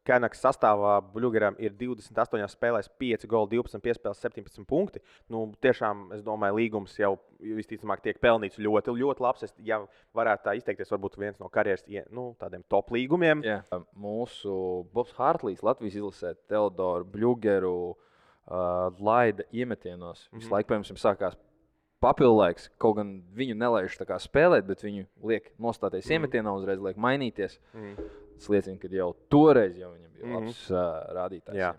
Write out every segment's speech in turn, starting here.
Kenaks sastāvā Bluegeram ir 28 spēlēs, 5 goli, 12 piespēles, 17 punkti. Nu, tiešām, es domāju, līgums jau visticamāk tiek pelnīts ļoti, ļoti labs. Ja varētu tā izteikties, varbūt viens no karjeras tādiem top līgumiem. Jā. Mūsu Bobs Hārtlīs Latvijas izlasē Teodoru Bluegeru laida iemetienos. Visu laiku, piemēram, sākās papildu laiks. Kaut gan viņu nelaiž tā kā spēlēt, bet viņu liek nostāties iemetienā, uzreiz liek mainīties. Tas liecina, ka jau toreiz viņam bija labs rādītājs.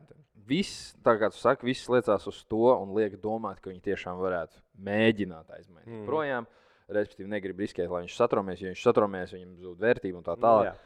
Viss, tā kā tu saki, viss liecās uz to un liek domāt, ka viņi tiešām varētu mēģināt aizmainīt projām. Respektīvi, negrib riskēt, lai viņš satromies. Ja viņš satromies, viņam zūd vērtība un tā tālāk.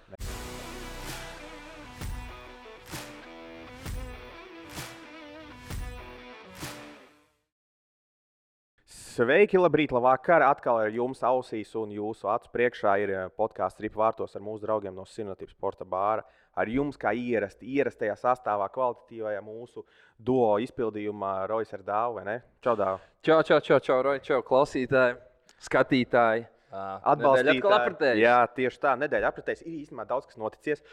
Sveiki, labrīt, labvakar! Atkal ar jums ausīs un jūsu acu priekšā ir podkāsts Ripa vārtos ar mūsu draugiem no Sinotības sporta bāra. Ar jums kā ierastajā sastāvā, kvalitatīvajā mūsu duo izpildījumā Rojas ar Dāvu, vai ne? Čau, Dāvu! Čau, Roja, čau, klausītāji, skatītāji! Atbalstītāji. Jā, tieši tā, nedēļa apritēs. Ir īstenībā daudz, kas noticies,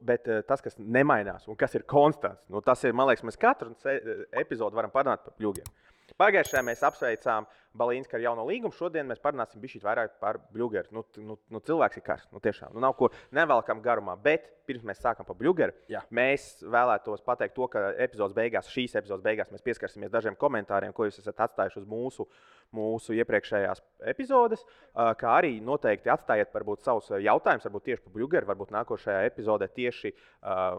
bet tas, kas nemainās un kas ir konstants, tas ir, man liekas, mēs katru epizodu varam parunāt par Bluegeriem. Pagājušajā mēs apsveicām Balīnsku ar jauno līgumu. Šodien mēs parunāsim bišķīt vairāk par Bluegeru. Cilvēks ir karsts. Tiešām. Nav ko nevelkam garumā. Bet pirms mēs sākam par Bluegeru, mēs vēlētos pateikt to, ka šīs epizodes beigās mēs pieskarsimies dažiem komentāriem, ko jūs esat atstājuši uz mūsu iepriekšējās epizodes. Kā arī noteikti atstājiet varbūt savus jautājumus, varbūt tieši par Bluegeru. Varbūt nākošajā epizodē tieši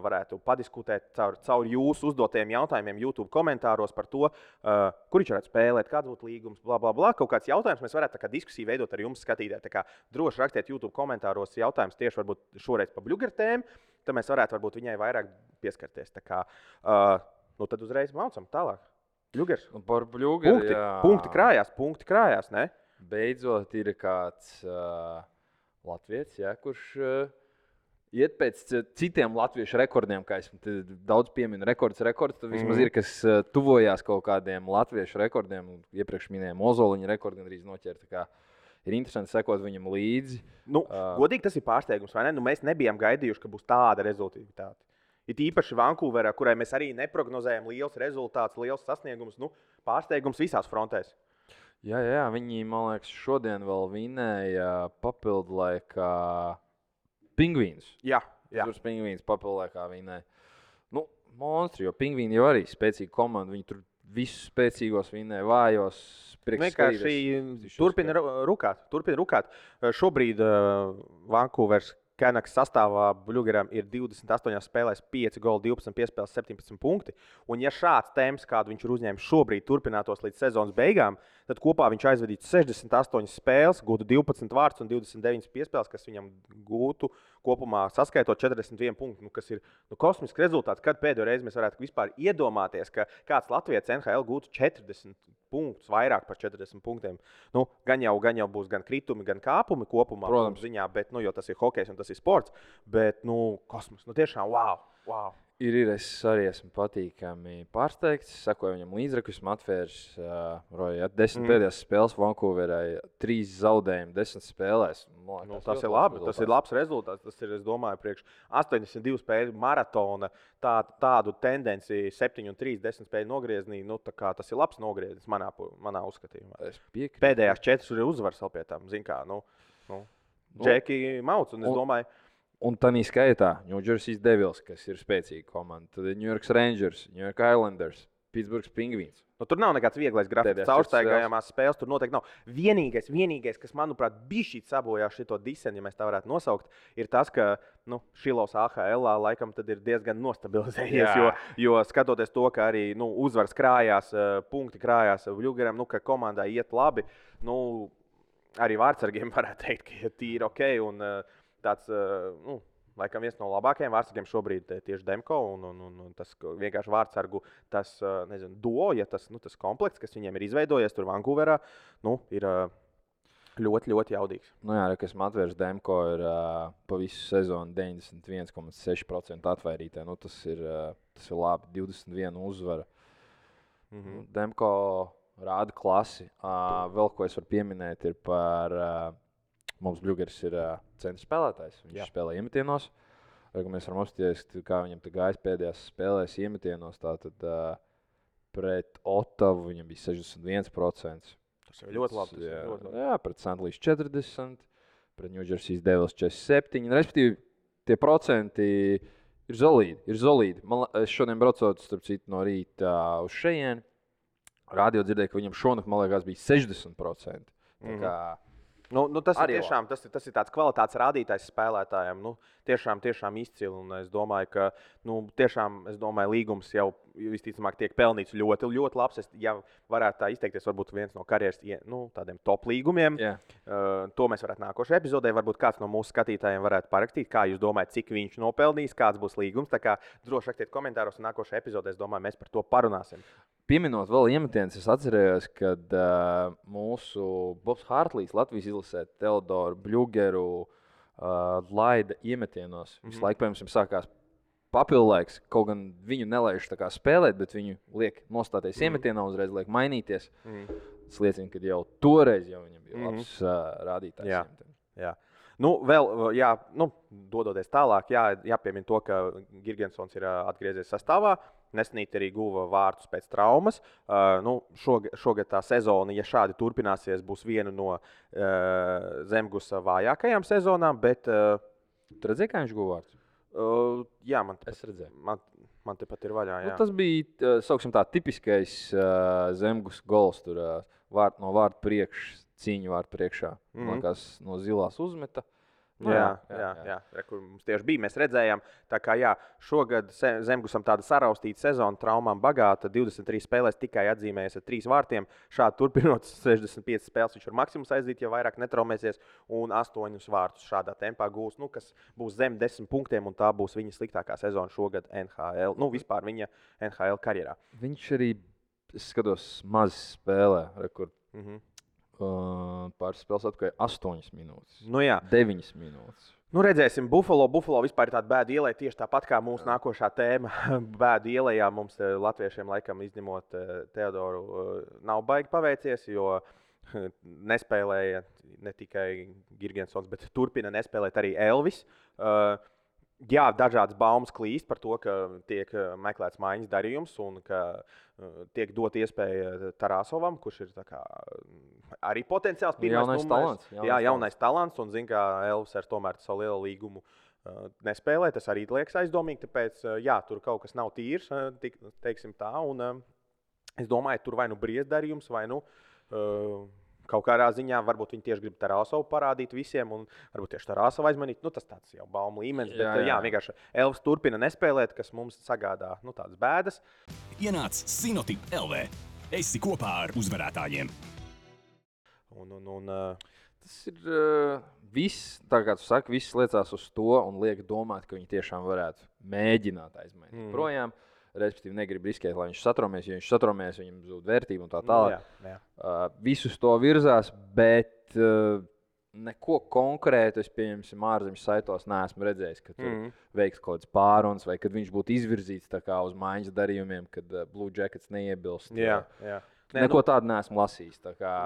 varētu padiskutēt caur jūsu uzdotajiem jautājumiem YouTube komentāros par to, kur viņš varētu spēlēt, kāds būtu līgums, bla. Kaut kāds jautājums mēs varētu tā kā diskusiju veidot ar jums skatītāji. Tā kā droši rakstiet YouTube komentāros jautājumus tieši varbūt šoreiz par Bluegeru tēmu, tad mēs varētu varbūt viņai vairāk pieskarties. Tā kā, tad uzreiz maucam tālāk. Bluegers. Par Bluegeru, punkti krājās, ne? Beidzot ir kāds latvietis, kurš iet pēc citiem latviešu rekordiem, kā es daudz pieminu, rekords, tad vismaz ir, kas tuvojās kaut kādiem latviešu rekordiem. Iepriekš minējām Ozoliņa rekordu gandrīz noķert. Tā kā ir interesanti sekot viņam līdzi. Godīgi tas ir pārsteigums, vai ne? Mēs nebijām gaidījuši, ka būs tāda rezultātivitāte. It īpaši Vankūverā, kurai mēs arī neprognozējam liels rezultāts, liels sasniegums, pārsteigums visās frontēs. Jā, viņi, man liekas, šodien vēl vinēja papildu laikā Pingvīns. Jā. Tur Pingvīns papildu laikā vinēja. Monstri, jo Pingvīni jau arī spēcīga komanda. Viņi tur visus spēcīgos vinēja, vājos. Vienkārši turpina rukāt. Šobrīd Vankūveras Kenaks sastāvā Bluegeram ir 28 spēlēs, 5 goli, 12 piespēles, 17 punkti. Un ja šāds temps, kādu viņš ir uzņēmis šobrīd, turpinātos līdz sezonas beigām, tad kopā viņš aizvadītu 68 spēles, gūtu 12 vārdus un 29 piespēles, kas viņam gūtu kopumā saskaitot 41 punktu, kas ir kosmisks rezultāts. Kad pēdējo reizi mēs varētu vispār iedomāties, ka kāds Latvijas NHL gūtu 40 punktus, vairāk par 40 punktiem. Gan jau būs gan kritumi, gan kāpumi kopumā, ziņā, bet, jo tas ir hokejs un tas ir sports, bet, kosmos, tiešām, wow. Ir, es arī esmu patīkami pārsteigts. Sekoju viņam līdzreku, esmu atvērs 10 pēdējās spēles Vankūverai, 3 zaudējumi 10 spēlēs. Tas ir labi, tas ir labs rezultāts. Tas ir, es domāju, priekš 82 spēļu maratona, tādu tendenci 7-3, 10 spēļu nogrieznī, tas ir labs nogrieznis manā uzskatījumā. Pēdējās 4 ir uzvaras vēl pie tam, zin kā, Džeki Mauts, un es domāju, un tādā skaitā New Jersey Devils, kas ir spēcīga komanda, tad New York Rangers, New York Islanders, Pittsburgh Penguins. Tur nav nekāds vieglais grafiks, caurstaigājamās spēles tur noteikti nav. Vienīgais, kas, manuprāt, bišķīt sabojā šito diseni, ja mēs tā varētu nosaukt, ir tas, ka Šilovs AHL laikam tad ir diezgan nostabilizējies, jo skatoties to, ka arī uzvaras krājās, punkti krājās Bluegeram, ka komandai iet labi, arī vārdsargiem varētu teikt, ka ir tīri ok, un tāds, laikam viens no labākajiem vārdsargiem šobrīd tieši Demko, un tas vienkārši vārdsargu, tas, duo, ja tas komplekts, kas viņiem ir izveidojies tur Vankūverā, ir ļoti, ļoti jaudīgs. Kas Matvers Demko ir pa visu sezonu 91,6% atvairītē, tas ir labi, 21 uzvara. Demko rāda klasi. Vēl ko es varu pieminēt ir par... Mums Bluegers ir centra spēlētājs. Viņš spēlē iemetienos. Mēs varam apstāties, kā viņam gājis pēdējās spēlēs iemetienos. Tātad pret Ottavu viņam bija 61%. Tas ir ļoti labi. Jā, pret St. Louis 40%, pret New Jersey Devils 47%. Respektīvi, tie procenti ir solīdi. Es šodien braucot, starp citu, no rīta uz šejieni. Radio dzirdēju, ka viņam šonakt, man liekas, bija 60%. Tā kā tas ir tāds kvalitātes rādītājs spēlētājiem. Tiešām izcili. Un es domāju, ka līgums jau visticamāk tiek pelnīts ļoti, ļoti labs. Ja varētu tā izteikties, varbūt viens no karjeras tādiem top līgumiem. To mēs varētu nākošajā epizodē. Varbūt kāds no mūsu skatītājiem varētu parakstīt, kā jūs domājat, cik viņš nopelnīs, kāds būs līgums. Tā kā droši rakstiet komentāros, un nākošajā epizodē, es domāju, mēs par to parunāsim. Pieminot vēl iemetienus, es atcerējos, kad mūsu Bobs Hartlīs Latvijas izlasē Teodoru Bļugeru laida iemetienos. Visu laiku, piemēram, sākās papildlaiks, kaut gan viņu nelaiž tā kā spēlēt, bet viņu liek nostāties iemetienā, uzreiz liek mainīties. Tas liecina, ka jau toreiz viņam bija labs rādītājs. Jā. Dodoties tālāk, jāpiemina to, ka Girgensons ir atgriezies sastāvā. Nesenīt arī guva vārtus pēc traumas. Šogad tā sezona, ja šādi turpināsies, būs viena no Zemgusa vājākajām sezonām. Bet, tu redzēji, kā viņš guva vārtus? Jā, es redzēju. Man tepat ir vaļā. Jā. Tas bija tipiskais Zemgus gols. Tur no vārtu priekš, cīņu vārtu priekšā. Man liekas, no zilās uzmeta. Jā. Kur mums tieši bija, mēs redzējām. Tā kā šogad Zemgusam tāda saraustīta sezona, traumām bagāta, 23 spēlēs tikai atzīmējies ar 3 vārtiem. Šādi turpinot 65 spēles, viņš var maksimums aizdīt, ja vairāk netraumēsies, un 8 vārtus šādā tempā gūs, kas būs zem 10 punktiem, un tā būs viņa sliktākā sezona šogad NHL, vispār viņa NHL karjerā. Viņš arī, es skatos, maz spēlē rekord. Pāris spēles atpakaļ 8 minūtes. 9 minūtes. Redzēsim, Buffalo vispār ir tāda bēda ielai, tieši tāpat kā mūsu nākošā tēma. Bēda ielējā mums latviešiem, laikam, izņemot Teodoru, nav baigi paveicies, jo nespēlēja ne tikai Girgensons, bet turpina nespēlēt arī Elvis. Dažādas baumas klīst par to, ka tiek meklēts maiņas darījums un ka tiek dot iespēja Tarasovam, kurš ir arī potenciāls pirmais numurs. Jaunais talants. Un zin, ka Elvis ar tomēr savu lielu līgumu nespēlē. Tas arī liekas aizdomīgi, tāpēc tur kaut kas nav tīrs, teiksim tā. Un es domāju, tur vai briest darījums, vai kaut kādā ziņā varbūt viņi tieši grib Tarasovu parādīt visiem, un varbūt tieši Tarasovu aizmanīt. Tas tāds jau baumu līmenis, bet vienkārši Elvis turpina nespēlēt, kas mums sagādā tādas bēdas. Ienāc Sinotip LV. Esi kopā ar uzvarētājiem. Tas ir viss, tā kā tu saki, viss liecās uz to un liek domāt, ka viņi tiešām varētu mēģināt aizmainīt projām. Respektīvi, negrib riskēt, lai viņš satraumies. Ja viņš satraumies, viņam zūd vērtība un tā tālāk. Visus to virzās, bet neko konkrētu es, pieņemsim, ārzemju saitos neesmu redzējis, ka tur veiks kaut kāds pārunas vai kad viņš būtu izvirzīts tā kā uz maiņas darījumiem, kad Blue Jackets neiebilst. Neko tādu neesmu lasījis. Tā kā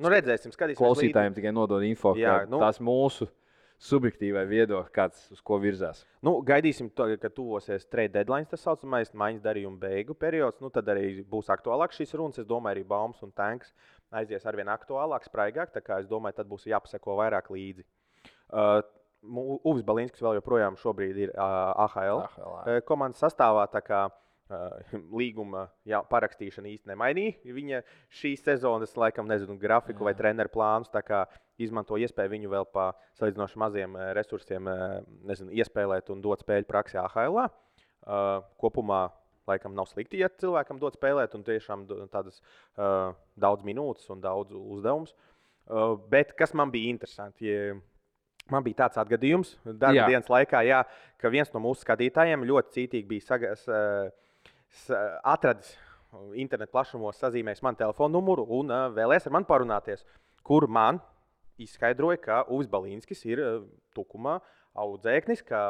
redzēsim, skatīsimies. Klausītājiem tikai nodod info, ka tās mūsu subjektīvai viedokļi, kāds uz ko virzās. Gaidīsim, kad tuvosies trade deadline, tas saucamais maiņas darījuma beigu periods. Tad arī būs aktuālāk šīs runas. Es domāju, arī Baums un Tanks aizies arvien aktuālāk, spraigāk. Tā kā es domāju, tad būs jāpaseko vairāk līdzi. Uvis Balinskis vēl joprojām šobrīd ir AHL komandas sastāvā. Tā kā līguma parakstīšana īsti nemainīja viņa šīs sezonas, laikam, grafiku vai treneru plānus. Tā kā izmanto iespēju viņu vēl pa salīdzinoši maziem resursiem iespēlēt un dot spēļu praksi AHL. Kopumā, laikam, nav slikti, ja cilvēkam dot spēlēt un tiešām tādas daudz minūtes un daudz uzdevums. Bet kas man bija interesanti? Man bija tāds atgadījums darba dienas laikā, ka viens no mūsu skatītājiem ļoti cītīgi bija atradis internetu plašumos, sazīmējis man telefonu numuru un vēlēs ar mani parunāties, kur man izskaidroja, ka Uvis Balinskis ir Tukumā audzēknis, ka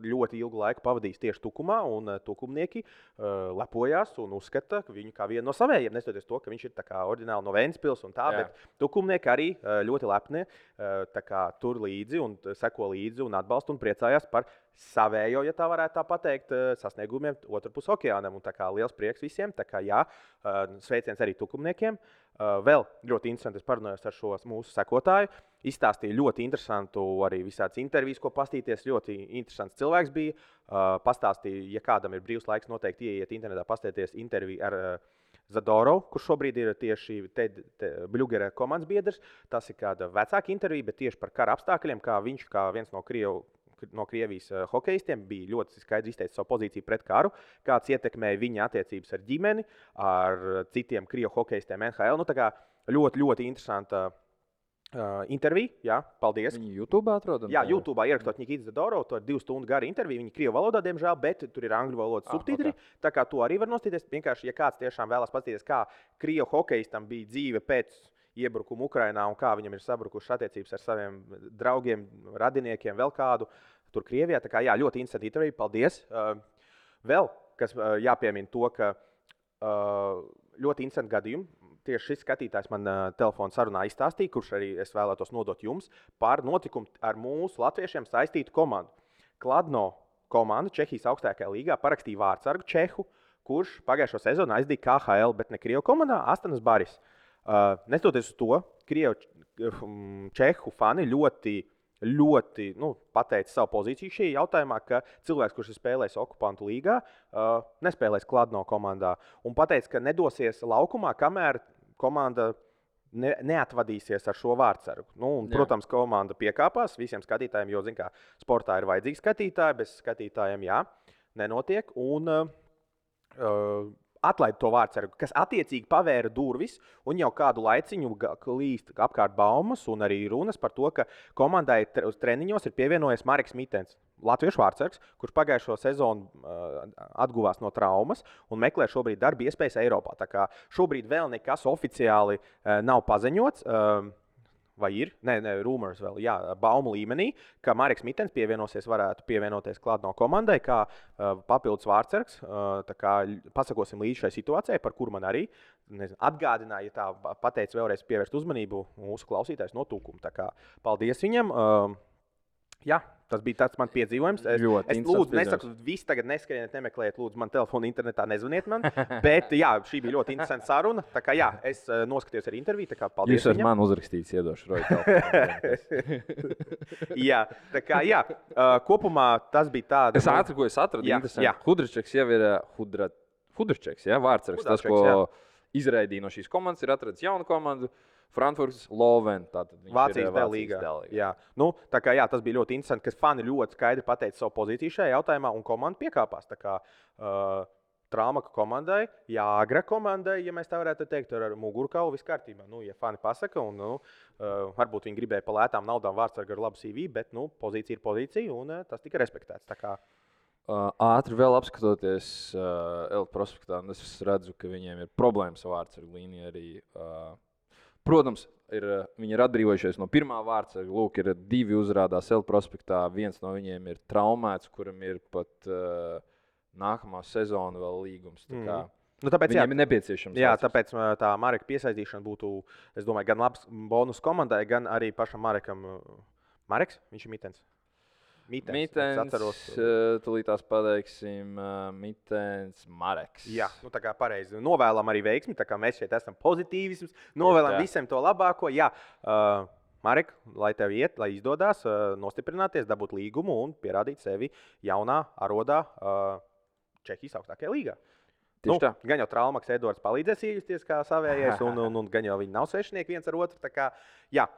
ļoti ilgu laiku pavadījis tieši Tukumā, un tukumnieki lepojās un uzskata viņu kā vienu no savējiem, neskatoties to, ka viņš ir tā kā oriģināli no Ventspils un tā, bet tukumnieki arī ļoti lepni tā kā tur līdzi un seko līdzi un atbalsta un priecājās par savējo, ja tā varētu tā pateikt, sasniegumiem otrpus okeānam. Un tā kā liels prieks visiem, tā kā jā, sveiciens arī tukumniekiem. Vēl ļoti interesanti, es parunājos ar šo mūsu sekotāju. Izstāstīja ļoti interesantu arī visādas intervijas, ko pastīties. Ļoti interesants cilvēks bija. Pastāstīja, ja kādam ir brīvs laiks, noteikti ieiet internetā, pastīties interviju ar Zadorovu, kurš šobrīd ir tieši Bļugera komandas biedrs. Tas ir kāda vecāka intervija, bet tieši par kara apstākļiem, kā viņš, kā viens no Krievijas hokeistiem, bija ļoti skaidri izteicis savu pozīciju pret karu, kāds ietekmēja viņa attiecības ar ģimeni, ar citiem Krievu hokeistiem NHL. Nu, tā kā ļoti, ļoti interesanta intervija. Jā, paldies. Viņi YouTube atrodam? Jā, YouTube ierakstot Nikita Zadorovu. To ir 2 stundu gara intervija. Viņa Krievu valodā, diemžēl, bet tur ir angļu valodas subtitri. Okay. Tā kā to arī var nostīties. Vienkārši, ja kāds tiešām vēlas paskatīties, kā Krievu hokeistam bija dzīve pēc iebrukumu Ukrainā un kā viņam ir sabrukušas attiecības ar saviem draugiem, radiniekiem, vēl kādu tur Krievijā. Tā kā jā, ļoti interesanti intervija. Paldies. Vēl, kas jāpiemina to, ka ļoti interesanti gadījumi. Tieši šis skatītājs man telefona sarunā izstāstīja, kurš arī es vēlētos nodot jums par notikumu ar mūsu latviešiem saistītu komandu. Kladno komanda Čehijas augstākajā līgā parakstīja vārdsargu Čehu, kurš pagājušo sezonu aizdīja KHL, bet ne Krievu komandā, Astanas Baris. Neskatoties uz to, Čehu fani ļoti pateica savu pozīciju šajā jautājumā, ka cilvēks, kurš ir spēlējis okupantu līgā, nespēlēs Kladno komandā. Un pateica, ka nedosies laukumā, kamēr komanda neatvadīsies ar šo vārdsargu. Protams, komanda piekāpās visiem skatītājiem, jo, zin kā, sportā ir vajadzīgi skatītāji, bez skatītājiem nenotiek. Un atlaida to vārdsargu, kas attiecīgi pavēra durvis, un jau kādu laiciņu klīst apkārt baumas un arī runas par to, ka komandai uz treniņos ir pievienojies Mareks Mitens, latviešu vārdsargs, kurš pagājušo sezonu atguvās no traumas un meklē šobrīd darba iespējas Eiropā. Tā kā šobrīd vēl nekas oficiāli nav paziņots. Vai ir? Nē, rumors vēl, jā, baumu līmenī, ka Mareks Mitens varētu pievienoties Kladno komandai kā papildus vārdsargs. Tā kā pasakosim līdz šai situācijai, par kuru man arī atgādināja, ja tā pateica vēlreiz pievērst uzmanību mūsu klausītājs no Tukuma. Tā kā paldies viņam. Jā, tas bija tāds man piedzīvojums. Es lūdzu, nesaku, visi tagad neskrieniet, nemeklējiet, lūdzu, man telefonu internetā nezvaniet man. Bet jā, šī bija ļoti interesanta saruna. Tā kā jā, es noskatījos arī interviju, tā kā paldies viņam. Jūs esat man uzrakstīts, iedošu Roju telefonu. Jā, tā kā jā, kopumā tas bija tāda. Es ātri, ko es atradu, interesanti. Hudričeks jau ir Hudričeks, jā, vārdsargs. Tas, ko izraidīja no šīs komandas, ir atradis jaunu komandu. Frankfurts, Loven. Vācijas līgā. Jā. Tā kā jā, tas bija ļoti interesanti, ka fani ļoti skaidri pateica savu pozīciju šajā jautājumā, un komanda piekāpās. Tā kā Traumaka komandai, Jāgra komandai, ja mēs tā varētu teikt, ar mugurkaulu viss kārtībā. Ja fani pasaka, un varbūt viņi gribēja pa lētām naudām vārdsargu ar labu CV, bet pozīcija ir pozīcija, un tas tika respektēts. Tā kā ātri vēl apskatoties Elta prospektā, es redzu, ka viņiem ir problēmas ar vārdsargu līniju arī. Protams, viņi ir atbrīvojušies no pirmā vārdsarga. Lūk, ir 2 uzrādās Elta prospektā. Viens no viņiem ir traumēts, kuram ir pat nākamā sezona vēl līgums. Tāpēc viņiem ir nepieciešams. Jā, tāpēc tā Mareka piesaistīšana būtu, es domāju, gan labs bonus komandai, gan arī pašam Marekam. Mareks, viņš ir Mitens. Mitens, tūlītās pateiksim, Mitens, Mareks. Jā, tā kā pareizi. Novēlam arī veiksmi, tā kā mēs šeit esam pozitīvisms. Novēlam visiem to labāko. Jā, Marek, lai tev iet, lai izdodas nostiprināties, dabūt līgumu un pierādīt sevi jaunā arodā Čehijas augstākajā līgā. Gan jau Traumaks Edvards palīdzēs iejusties kā savējais, un gan jau viņi nav svešinieki viens ar otru. Tā kā, jā.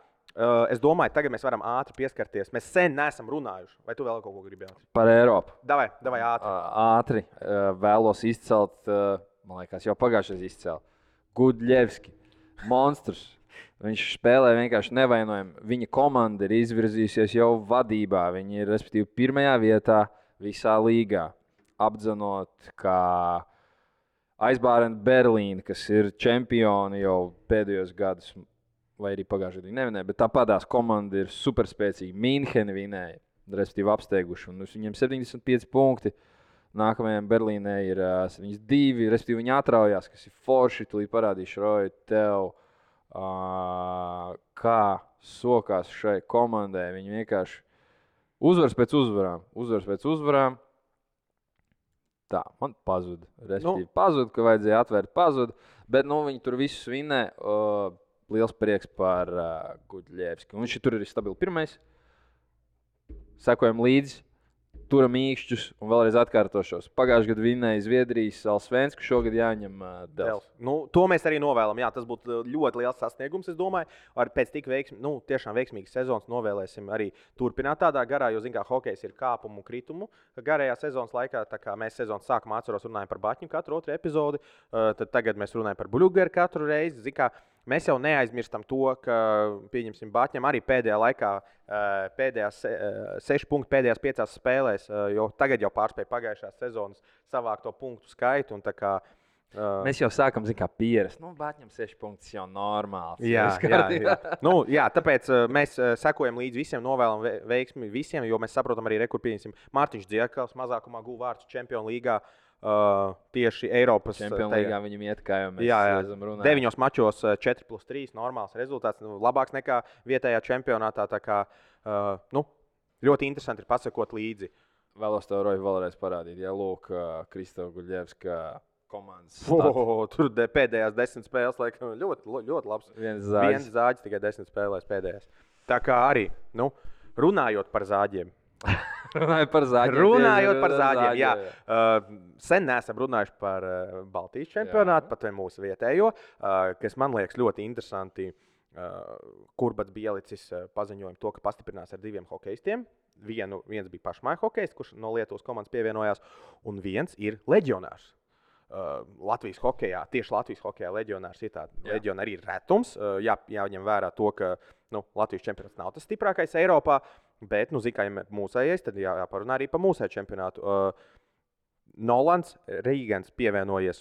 Es domāju, tagad mēs varam ātri pieskarties. Mēs sen neesam runājuši. Vai tu vēl kaut ko gribēji? Par Eiropu. Davai ātri. Ātri vēlos izcelt, man liekas, jau pagājušais izcēl. Gudļevski, monstrs. Viņš spēlē vienkārši nevainojami. Viņa komanda ir izvirzījusies jau vadībā. Viņi ir, respektīvi, 1. vietā visā līgā. Apdzenot kā Aizbārena Berlīna, kas ir čempioni jau pēdējos gadus. Vai arī pagājušajā gadā nevinēja, bet tāpatās komanda ir superspēcīga. Mīnhena vinēja. respektīvi apsteiguši. Un viņiem 75 punkti. Nākamajam Berlīnē ir 72, respektīvi viņi atraujās, kas ir forši. Tūlīt parādīšu, Roja, tev, kā sokās šai komandai. Viņi vienkārši uzvars pēc uzvarām. Tā, man pazuda. Respektīvi pazuda, ka vajadzēja atvērt pazuda. Bet viņi tur visus vinnē. Liels prieks par Gudļevski. Viņš tur ir stabili pirmais. Sekojam līdzi. Turam īkšķus un vēlreiz atkārtošos. Pagājušajā gadā vinnēja Zviedrijas Alsvensku, šogad jāņem Dels. To mēs arī novēlam. Jā, tas būtu ļoti liels sasniegums, es domāju. Pēc tik tiešām veiksmīgas sezonas novēlēsim arī turpināt tādā garā, jo, zin kā, hokejs ir kāpumu un kritumu garajā sezonas laikā. Tā kā mēs sezonas sākumā runājam par Baķņu katru otru epizodi, tad tagad mēs runājam par Bļugeru katru reizi. Zin kā, mēs jau neaizmirstam to, ka, pieņemsim, Baķņam arī pēdējā laikā, pēdējās 6 punkti pēdējās 5 spēlēs, jo tagad jau pārspēja pagājušās sezonas savākto punktu skaitu. Mēs jau sākam, pierast. Baķņam 6 punktus jau normāls. Jā. Tāpēc mēs sekojam līdzi visiem, novēlam veiksmi visiem, jo mēs saprotam arī, kur pieņemsim Mārtiņš Dziekals mazākumā guva vārdus Čempionu līgā. Tieši Eiropas Čempionu līgā viņam iet, kā jau mēs esam runājuši. 9 mačos 4+3 normāls rezultāts, labāks nekā vietējā čempionātā. Tā kā ļoti interesanti ir pasakot līdzi. Vēlos tev, Roja, vēlreiz parādīt. Jā, lūk, Kristova Gudļevska komandas. Tur pēdējās 10 spēles, laikam, ļoti labs. Viens zāģis, tikai 10 spēlēs pēdējās. Tā kā arī, runājot par zāģiem. Runājot par zāģiem, jā. Sen neesam runājuši par Baltijas čempionātu, pat mūsu vietējo, kas man liekas ļoti interesanti. Kurbats Bielicis paziņoja to, ka pastiprinās ar 2 hokejistiem. Viens bija pašmāju hokejists, kurš no Lietuvas komandas pievienojās, un viens ir leģionārs. Latvijas hokejā, tieši Latvijas hokejā leģionārs ir tāds. Leģionāri ir retums. Jāņem vērā to, ka Latvijas čempionāts nav tas stiprākais Eiropā. Bet, ja mūsējais, tad jāparunā arī par mūsēju čempionātu. Nolans Rīgans pievienojies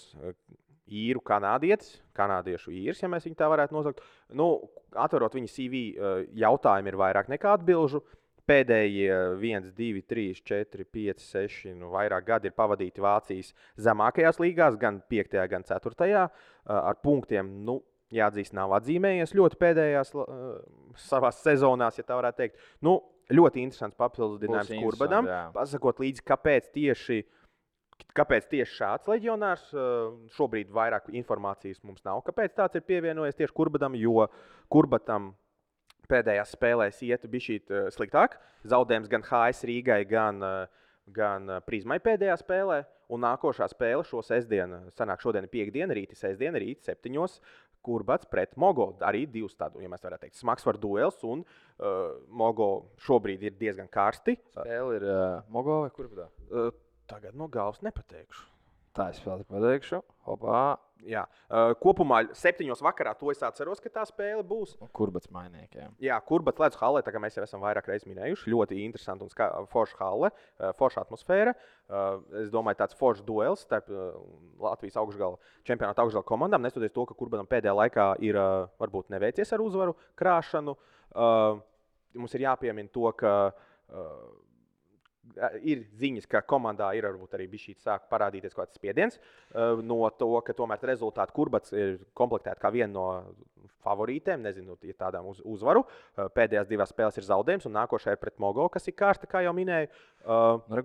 īru kanādiešu īrs, ja mēs viņu tā varētu nosaukt. Atverot viņa CV, jautājumi ir vairāk nekā atbilžu. Pēdējie 1, 2, 3, 4, 5, 6, vairāk gadi ir pavadīti Vācijas zemākajās līgās, gan 5., gan 4. Ar punktiem, jāatzīst, nav atzīmējies ļoti pēdējās savās sezonās, ja tā varētu teikt. Ļoti interesants papildinājums Kurbadam. Pasakot līdzi, kāpēc tieši šāds leģionārs. Šobrīd vairāk informācijas mums nav, kāpēc tāds ir pievienojies tieši Kurbadam, jo Kurbatam pēdējās spēlēs iet bišķīt sliktāk. Zaudējums gan HS Rīgai, gan Prizmai pēdējā spēlē. Un nākošā spēle šo sestdienu, šodien ir 5. rīti, sestdiena, rīti 7. Kurbats pret Mogo. Arī 2 tādu, ja mēs varētu teikt, smagsvaru duels. Un Mogo šobrīd ir diezgan karsti. Spēle ir Mogo vai Kurbatā? Tagad no galvas nepateikšu. Tā es vēl pateikšu. Hopā. Jā. Kopumā 7. vakarā to es atceros, ka tā spēle būs. Kurbats mainniekiem. Jā, Kurbats Ledus hallē, tā kā mēs jau esam vairāk reizes minējuši. Ļoti interesanti un forša halle, forša atmosfēra. Es domāju, tāds foršs duels starp Latvijas čempionāta augšgala komandām. Neskatoties to, ka Kurbatam pēdējā laikā ir varbūt neveicies ar uzvaru krāšanu. Mums ir jāpiemina to, ka ir ziņas, ka komandā ir varbūt arī bišķīt sāk parādīties kaut kāds spiediens no to, ka tomēr rezultāti Kurbats ir komplektēti kā viena no favorītēm, nezinu, ja tādām uzvaru. Pēdējās 2 spēles ir zaudējums, un nākošais ir pret Mogo, kas ir kārsta, kā jau minēju.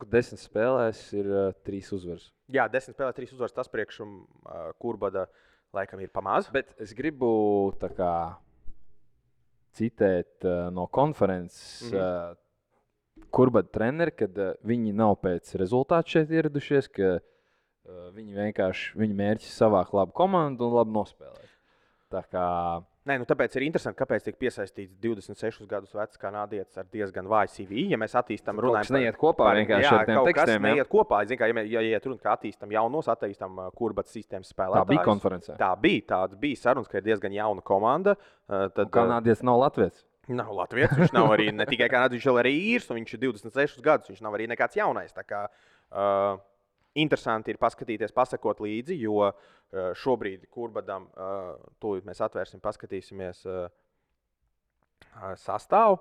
10 spēlēs ir 3 uzvaras. Jā, 10 spēlēs 3 uzvaras, tas priekš Kurbada laikam ir pamaz. Bet es gribu tā kā citēt no konferences Kurbada treneri, kad viņi nav pēc rezultātu šeit ieradušies, ka viņi mērķis savākt labu komandu un labi nospēlēt. Tā kā... Tāpēc ir interesanti, kāpēc tiek piesaistīts 26 gadus vecs kanādietis ar diezgan vāju CV. Ja mēs attīstam, runājam par... neiet kopā vienkārši ar tiem tekstiem. Neiet kopā. Ja iet runa, ka attīstam jaunos, attīstam Kurbats sistēmas spēlētājus. Tā bija konferencē. Tāds bija sarunas, ka ir diezgan jauna komanda. Kanādietis nav latviets. Nav latviets, viņš nav arī ne tikai kanādietis, viņš arī īrs, un viņš ir 26 gadus, viņš nav arī nekāds jaunais. Tā kā interesanti ir paskatīties, pasakot līdzi, jo šobrīd Kurbadam, tūlīt mēs atvērsim, paskatīsimies sastāvu.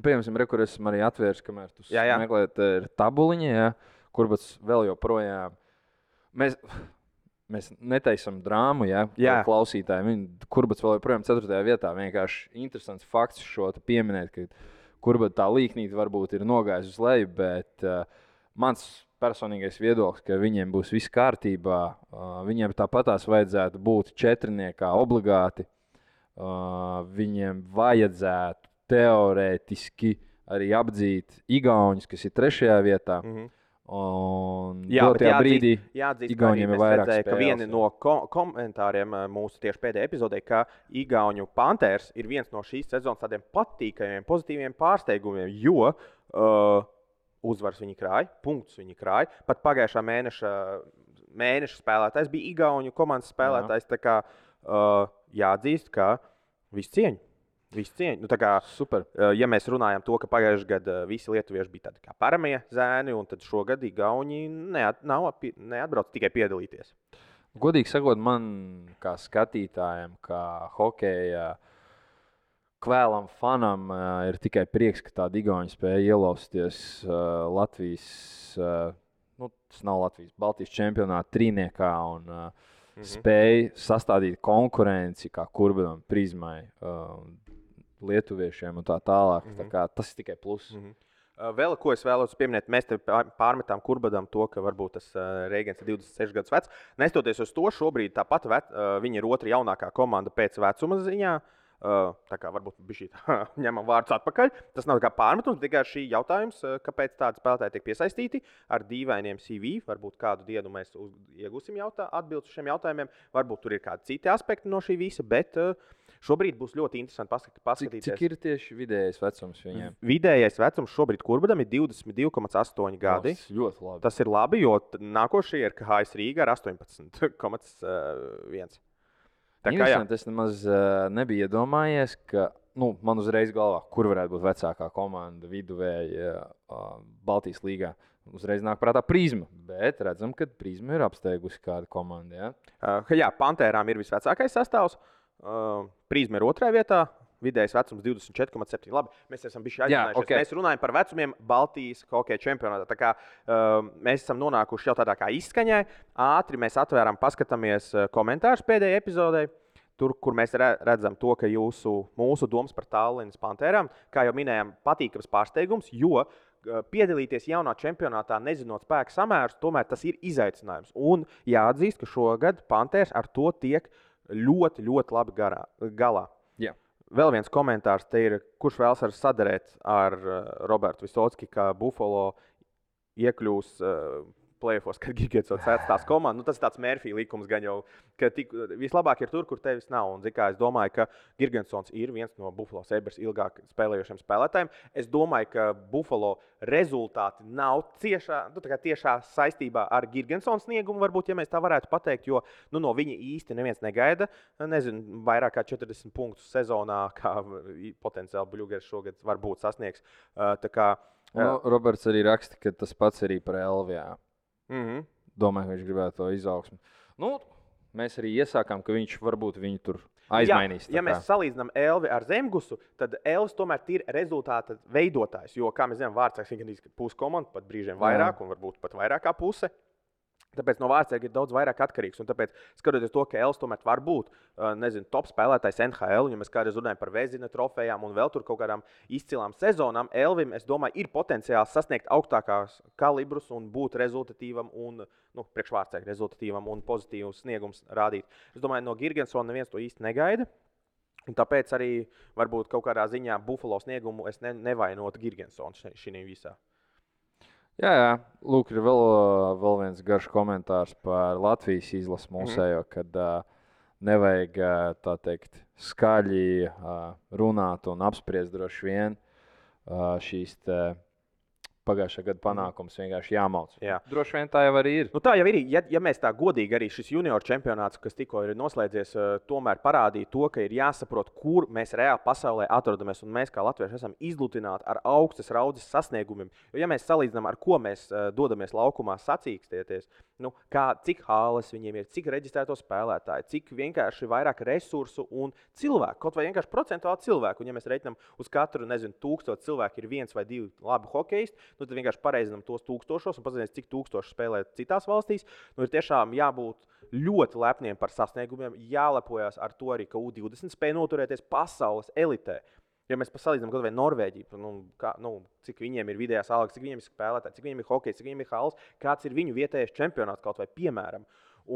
Piemēram, kur esmu arī atvērs, kamēr tu Jā. meklēt tabuliņu, ja, kur būs vēl joprojām. Mēs netaisam drāmu, ja, klausītājiem. Kur būs vēl joprojām 4. vietā. Vienkārši interesants fakts šo pieminēt, ka kur tā līknīte varbūt ir nogājusi uz leju, bet mans personīgais viedoklis, ka viņiem būs viss kārtībā. Viņiem tāpatās vajadzētu būt 4. obligāti. Viņiem vajadzētu teorētiski arī apdzīt igauņus, kas ir 3. vietā. Un dotajā brīdī Igauniem ir vairāk spēles. Ka vieni no komentāriem mūsu tieši pēdējā epizodē, ka Igauņu Panthers ir viens no šīs sezonas tādiem patīkamiem, pozitīviem pārsteigumiem, jo uzvaras viņi krāja, punktus viņi krāja. Pat pagājušā mēneša spēlētājs bija Igauņu komandas spēlētājs. Tā kā jāatzīst, ka visu cieņu. Nu, super. Ja mēs runājam to, ka pagājušajā gadā visi lietuvieši bija tādi kā paramie zēni, un tad šogad Igauni neatbrauc tikai piedalīties. Godīgi sakot, man kā skatītājam, kā hokeja kvēlam fanam ir tikai prieks, ka tādi Igauni spēja ielausties Latvijas, tas nav Latvijas, Baltijas čempionāta trīniekā un spēja sastādīt konkurenci kā Kurbinam, Prizmai, lietuviešiem un tā tālāk. Tā kā, tas ir tikai pluss. Vēl ko es vēlos pieminēt, mēs te pārmetām Kurbadam to, ka varbūt tas Reigens ir 26 gadus vecs. Nestoties uz to, šobrīd tāpat viņa ir otra jaunākā komanda pēc vecuma ziņā. Tā kā varbūt bišķi ņemam vārdus atpakaļ. Tas nav kā pārmetums, tikai šī jautājums, kāpēc tādi spēlētāji tiek piesaistīti ar dīvainiem CV. Varbūt kādu dienu mēs iegūsim atbildes uz šiem jautājumiem. Varbūt tur ir kādi citi aspekti no šī visa, bet šobrīd būs ļoti interesanti paskatīties. Cik ir tieši vidējais vecums viņiem? Vidējais vecums šobrīd Kurbadam ir 22,8 gadi. Tas ļoti labi. Tas ir labi, jo nākošie ir KHS Rīga ar 18,1. Es nemaz nebiju iedomājies, ka man uzreiz galvā, kur varētu būt vecākā komanda viduvēja Baltijas līgā. Uzreiz nāk prātā Prizma, bet redzam, ka Prizma ir apsteigusi kādu komandu. Jā, Pantērām ir visvecākais sastāvs. Prizma ir 2. vietā. Vidējais vecums 24,7. Labi, mēs esam bijuši aizsinājušies. Okay. Mēs runājam par vecumiem Baltijas hokeja čempionātā. Tā kā mēs esam nonākuši jau tādā kā izskaņai. Ātri mēs atvērām, paskatāmies komentārus pēdējai epizodei. Tur, kur mēs redzam to, ka mūsu domas par Tallinas Pantērām, kā jau minējām, patīkams pārsteigums, jo piedalīties jaunā čempionātā, nezinot spēku samērus, tomēr tas ir izaicinājums. Un jāatzīst, ka šogad Pantērs ar to tiek ļoti, ļoti labi galā. Jā. Vēl viens komentārs te ir, kurš vēlas sadarēt ar Robertu Visocki, ka Buffalo iekļūs play-offos, kad Girgensons atstās komandu. Tas ir tāds Murphy likums gan jau, ka vislabāk ir tur, kur tevis nav. Un, es domāju, ka Girgensons ir viens no Buffalo Sabres ilgāk spēlējošiem spēlētājiem. Es domāju, ka Buffalo rezultāti nav tiešā saistībā ar Girgensons sniegumu, varbūt, ja mēs tā varētu pateikt, jo no viņa īsti neviens negaida. Nezinu, vairāk kā 40 punktus sezonā, kā potenciāli Bļugers šogad varbūt sasniegs. Roberts arī raksta, ka tas pats arī par Elvijā. Domāju, ka viņš gribētu to izaugsmu. Mēs arī iesākām, ka viņš varbūt viņu tur aizmainīs. Ja mēs salīdzinām Elvi ar Zemgusu, tad Elvis tomēr ir rezultāta veidotājs. Jo, kā mēs zinām, Vārtsargs ir pusi komanda, pat brīžiem vairāk, un varbūt pat vairāk kā puse. Tāpēc no Vārtsarga ir daudz vairāk atkarīgs. Un tāpēc, skatoties to, ka Elvis tomēr var būt top spēlētājs NHL, ja mēs kādreiz runājam par Vezina trofejām un vēl tur kaut kādām izcilām sezonām, Elvim, es domāju, ir potenciāls sasniegt augstākās kalibrus un būt rezultatīvam un priekš Vārtsarga rezultatīvam un pozitīvus sniegums rādīt. Es domāju, no Girgensona neviens to īsti negaida. Un tāpēc arī varbūt kaut kādā ziņā Buffalo sniegumu es nevainotu Girgensonu šī visā. Jā. Lūk, ir vēl viens garš komentārs par Latvijas izlasi mūsējo, kad nevajag tā teikt skaļi runāt un apspriest droši vien šīs pagājušā gada panākums vienkārši jāmauc. Jā. Droši vien tā jau arī ir. Nu, tā jau ir. Ja mēs tā godīgi arī šis junior čempionāts, kas tikko ir noslēdzies, tomēr parādīja to, ka ir jāsaprot, kur mēs reāli pasaulē atrodamies. Un mēs, kā latvieši, esam izlutināti ar augstas raudzes sasniegumiem. Jo, ja mēs salīdzinām, ar ko mēs dodamies laukumā sacīkstieties, cik hāles viņiem ir, cik reģistrēto spēlētāju, cik vienkārši vairāk resursu un cilvēku, kaut vai vienkārši procentuāli cilvēku. Un, ja mēs reiķinām uz katru, 1000 cilvēku ir 1 vai 2 labi hokeisti, tad vienkārši pareizinām tos tūkstošos un paskatīsimies, cik tūkstoši spēlē citās valstīs. Ir tiešām jābūt ļoti lepniem par sasniegumiem, jālepojas ar to arī, ka U20 spēja noturēties pasaules elitē. Ja mēs salīdzinām kaut vai Norvēģiju, cik viņiem ir vidējās algas, cik viņiem ir spēlētāji, cik viņiem ir hokejs, cik viņiem ir hāles, kāds ir viņu vietējais čempionāts kaut vai piemēram.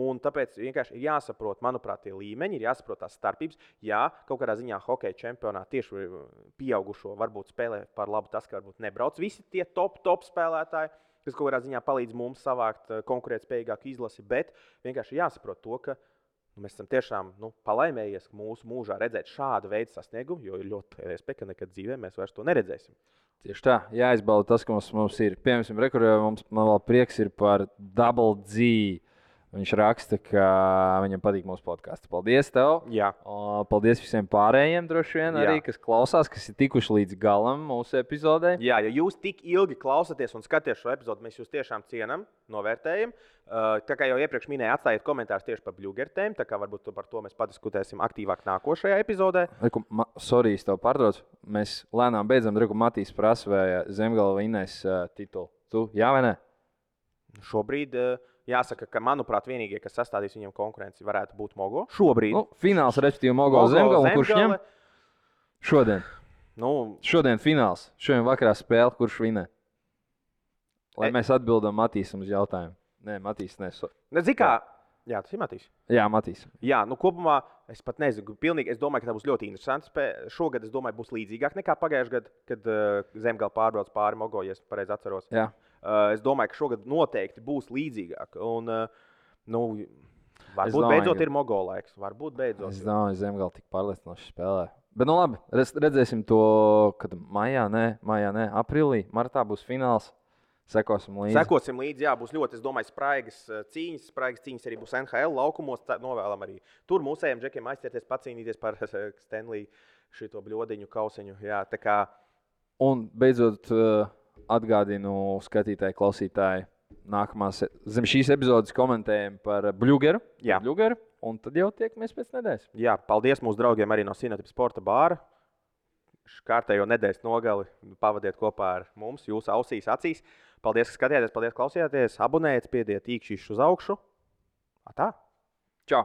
Un tāpēc vienkārši ir jāsaprot, manuprāt, tie līmeņi, ir jāsaprot tās starpības. Jā, kaut kādā ziņā hokeja čempionātā tieši pieaugušo varbūt spēlē par labu tas, ka varbūt nebrauc visi tie top spēlētāji, kas kaut kādā ziņā palīdz mums savākt konkurētspējīgāku izlasi, bet vienkārši jāsaprot to, ka mēs esam tiešām palaimējies mūsu mūžā redzēt šādu veidu sasniegumu, jo ir ļoti iespēja, ka nekad dzīvē mēs vairs to neredzēsim. Tieši tā, jāizbauda tas, kas mums ir. Piemēram, man vēl prieks ir par Double G. Viņš raksta, ka viņam patīk mūsu podkāsts. Paldies tev! Jā. Paldies visiem pārējiem, droši vien, arī, kas klausās, kas ir tikuši līdz galam mūsu epizodē. Jā, ja jūs tik ilgi klausāties un skatāties šo epizodu, mēs jūs tiešām cienām, novērtējam. Tā kā jau iepriekš minēju, atstājiet komentārus tieši par blugertēm, tā kā varbūt par to mēs padiskutēsim aktīvāk nākošajā epizodē. Sorry, es tev pārtraucu. Mēs lēnām beidzam, Dreku Matīs prasa, vai Zemgala vinnēs titulu. Tu, jā vai ne? Šobrīd jāsaka, ka, manuprāt, vienīgie, kas sastādīs viņam konkurenci, varētu būt Mogo. Šobrīd. Fināls, respektīvi, Mogo Zemgala. Kurš ņem? Šodien. Šodien fināls. Šodien vakarā spēle, kurš vinē. Lai mēs atbildam Matīsam uz jautājumu. Nē, Matīs neso. Jā, tas ir Matīs. Jā, Matīs. Jā, kopumā es pat nezinu. Pilnīgi, es domāju, ka tā būs ļoti interesanti spēle. Šogad, es domāju, būs līdzīgāk nekā pagājušajā gadā, kad Zemgala pārbrauc pāri Mogo, ja es pareizi atceros. Jā. Es domāju, ka šogad noteikti būs līdzīgāk. Un, varbūt beidzot ir Mogo laiks. Varbūt beidzot. Es domāju, ka Zemgala tik pārliecinoši spēlē. Bet, labi, redzēsim to, kad maijā, aprīlī, martā būs fināls. Sekosim līdzi. Jā, būs ļoti, es domāju, spraigas cīņas. Spraigas cīņas arī būs NHL laukumos. Novēlam arī tur mūsējiem džekiem aizķerties, pacīnīties par Stanley šito bļodiņu kausiņu. Jā, tā kā... Un beidzot atgādinu skatītāji, klausītāji, zem šīs epizodes komentējam par Bļugeru. Jā. Bļugeru, un tad jau tiekamies pēc nedēļas. Jā, paldies mūsu draugiem arī no Sinotip Sporta bāra. Kārtējo nedēļas nogali pavadiet kopā ar mums, jūsu ausīs, acīs. Paldies, ka skatījāties, paldies, klausījāties. Abonējiet, spiediet īkšķīšus uz augšu. Tā. Čau!